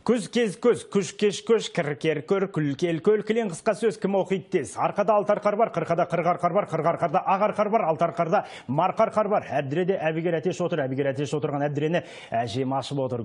Көз кез көз, күш кеш көш, кір көр, күл кел көл, кілең қысқа сөз кім оқиды тез. Арқада алты арқар бар, қырқада қырық арқар бар, қырық арқарда ақ арқар бар, алты арқарда марқа арқар бар. Әбдіреде әбігер әтеш отыр, әбігер әтеш отырған әбдірені әжем ашып отыр.